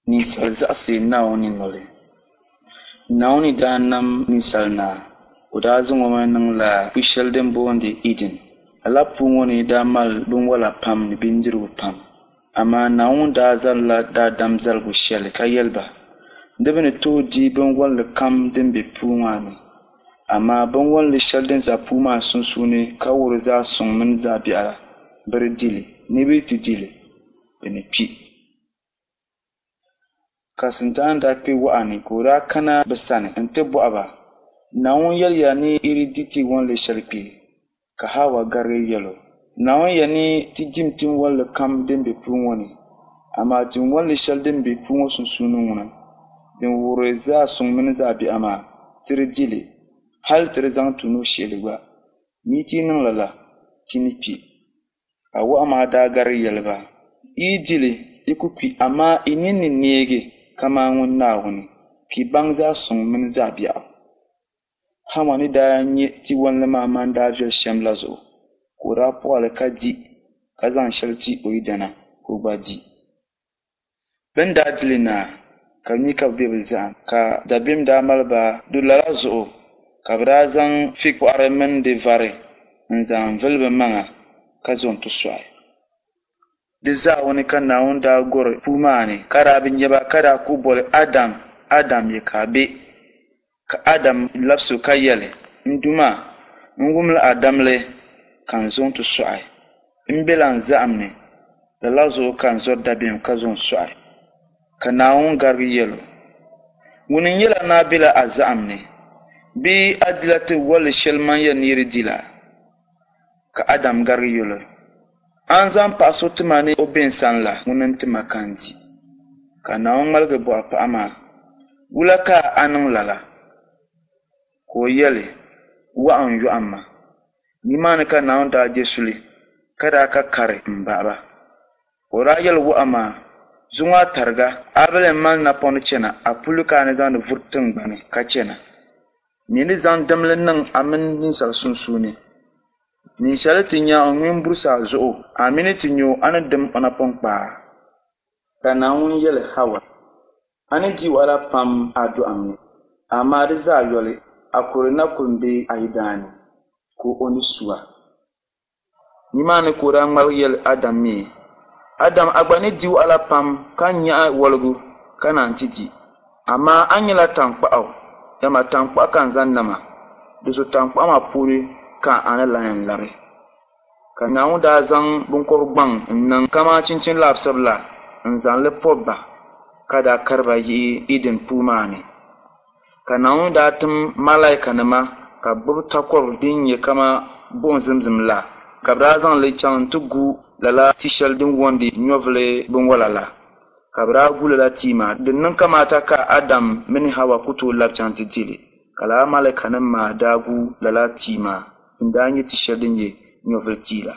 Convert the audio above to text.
Ninsal zaɣisi Naawuni noli. Naawuni ni daa nam ninsal naa, o daa zaŋ o mi niŋla pu shɛli din boondi Iden. Lala puu ŋɔ ni daa mali binwala pam ni bindirigu pam. Amaa Naawuni daa zalila daadam zaligu shɛli ka yɛli ba, Di bi ni tooi di binwalli kam din be puu maa ni, amaa binwalli shɛli din za puu maa sunsuuni ka wuhiri zaɣ suŋ mini zaɣ biɛɣu la, bɛ di di li, ni bɛ yi ti di li, bɛ ni kpi. Ka Sintani daa kpe wahu ni ka o daa kana bɛ sani nti bɔhi ba, Naawuni yɛliya ni yi di di ti wɔnli shɛli kpe? Ka Hawa garigi yɛl o, Naawuni yɛli ni ti dim tin wɔnli kam din be puu ŋɔ ni, amaa tin wɔnli shɛli din be puu ŋɔ sunsuuni ŋuna, din wuhiri zaɣ suŋ mini zaɣ biɛɣu maa, ti di di li, hal ti di zaŋ ti nuhi shihi li gba. Ni yi ti niŋ lala, ti ni kpi. Ka wahu maa daa garigi yɛli ba, Yi yi di li, yi ku kpi, amaa yi nini ni neegi kaman ŋun Naawuni, ka yi baŋ zaɣ suŋ mini zaɣ biɛɣu. Hawa ni daa nya tiwalli maa mani daa viɛl shɛm la zuɣu, ka o daa pɔɣi li ka di, ka zaŋ shɛli ti o yidana ka o gba di. Bɛ ni daa di li naai, ka bɛ mi ka bɛ be bɛ zahim, ka dabiɛm daa mali ba do lala zuɣu, ka bɛ daa zaŋ fiig pɔɣiri mini di vari n-zaŋ vili bɛ maŋa ka zo nti sɔɣi. Di zaawuni ka Naawuni daa gɔri puu maa ni, ka daa bi nya ba, ka daa kuhi boli, Adam, Adam, ya ka a be? Ka Adam labisi o ka yɛli, N Duuma, n wumla a damli ka n zo nti sɔɣi. M bela n zahim ni, lala zuɣu ka n zɔri dabiɛm ka zo n-sɔɣi. Ka Naawuni garigi yɛl o, Ŋuni n-yɛl a ni a bela a zahim ni? Bee a dila ti walli shɛli man yɛli ni yi di di la? Ka Adam garigi yɛl o, A ni zaŋ paɣ so ti ma ni o be n sani la, ŋuni n-ti ma ka n di. Ka Naawuni ŋmaligi bɔhi paɣ maa, Wula ka a niŋ lala? Ka o yɛli, Wahu n-yɔhim ma. Nimaani ka Naawuni daa je suli, ka daa ka kari m-bahi ba. Ka o daa yɛli wahu maa, Zuŋɔ a tariga, a bi lee mali napɔŋ ni chana, a puli ka a ni zaŋdi vuri tiŋgbani ka chana. N mi ni zaŋ dimli niŋ a mini ninsal sunsuuni. Ninsal ti nya o ŋme m-burisi a zuɣu, a mi ni ti nya o a ni dim o napɔŋ kpaa. Ka Naawuni yɛli Hawa, A ni di wahala pam a dɔɣim ni, amaa di zaa yoli, a kuri na kul m-be a yidana ni, ka o ni su a. Nimaani ka o daa ŋmaligi yɛli Adam mi, Adam, a gba ni di wahala pam ka nyaɣi wɔligu ka naan ti di, amaa a nyɛla taŋkpaɣu, dama taŋkpaɣu ka n zaŋ nam a, di zuɣu taŋkpaɣu maa puuni ka a ni lan yɛn labi. Ka Naawuni daa zaŋ biŋkɔb gbaŋ n-niŋ kaman chinchin labisibu la n-zaŋ li pɔbi ba, ka daa kari ba yihi Iden puu maa ni. Ka Naawuni daa tim malaikanima ka bɛ gbibi takɔbi din nyɛ kaman buɣim zimzim la, ka bɛ daa zaŋ li chaŋ nti gu lala ti shɛli din wɔndi nyɔvili binwala la. Ka bɛ daa gu lala tia maa. Di niŋ kamaata ka Adam mini Hawa ku tooi lab chaŋ ti di li, ka lala malaikanim maa daa gu lala tia maa din daa nyɛ ti shɛli din nyɛ nyɔvili tia la.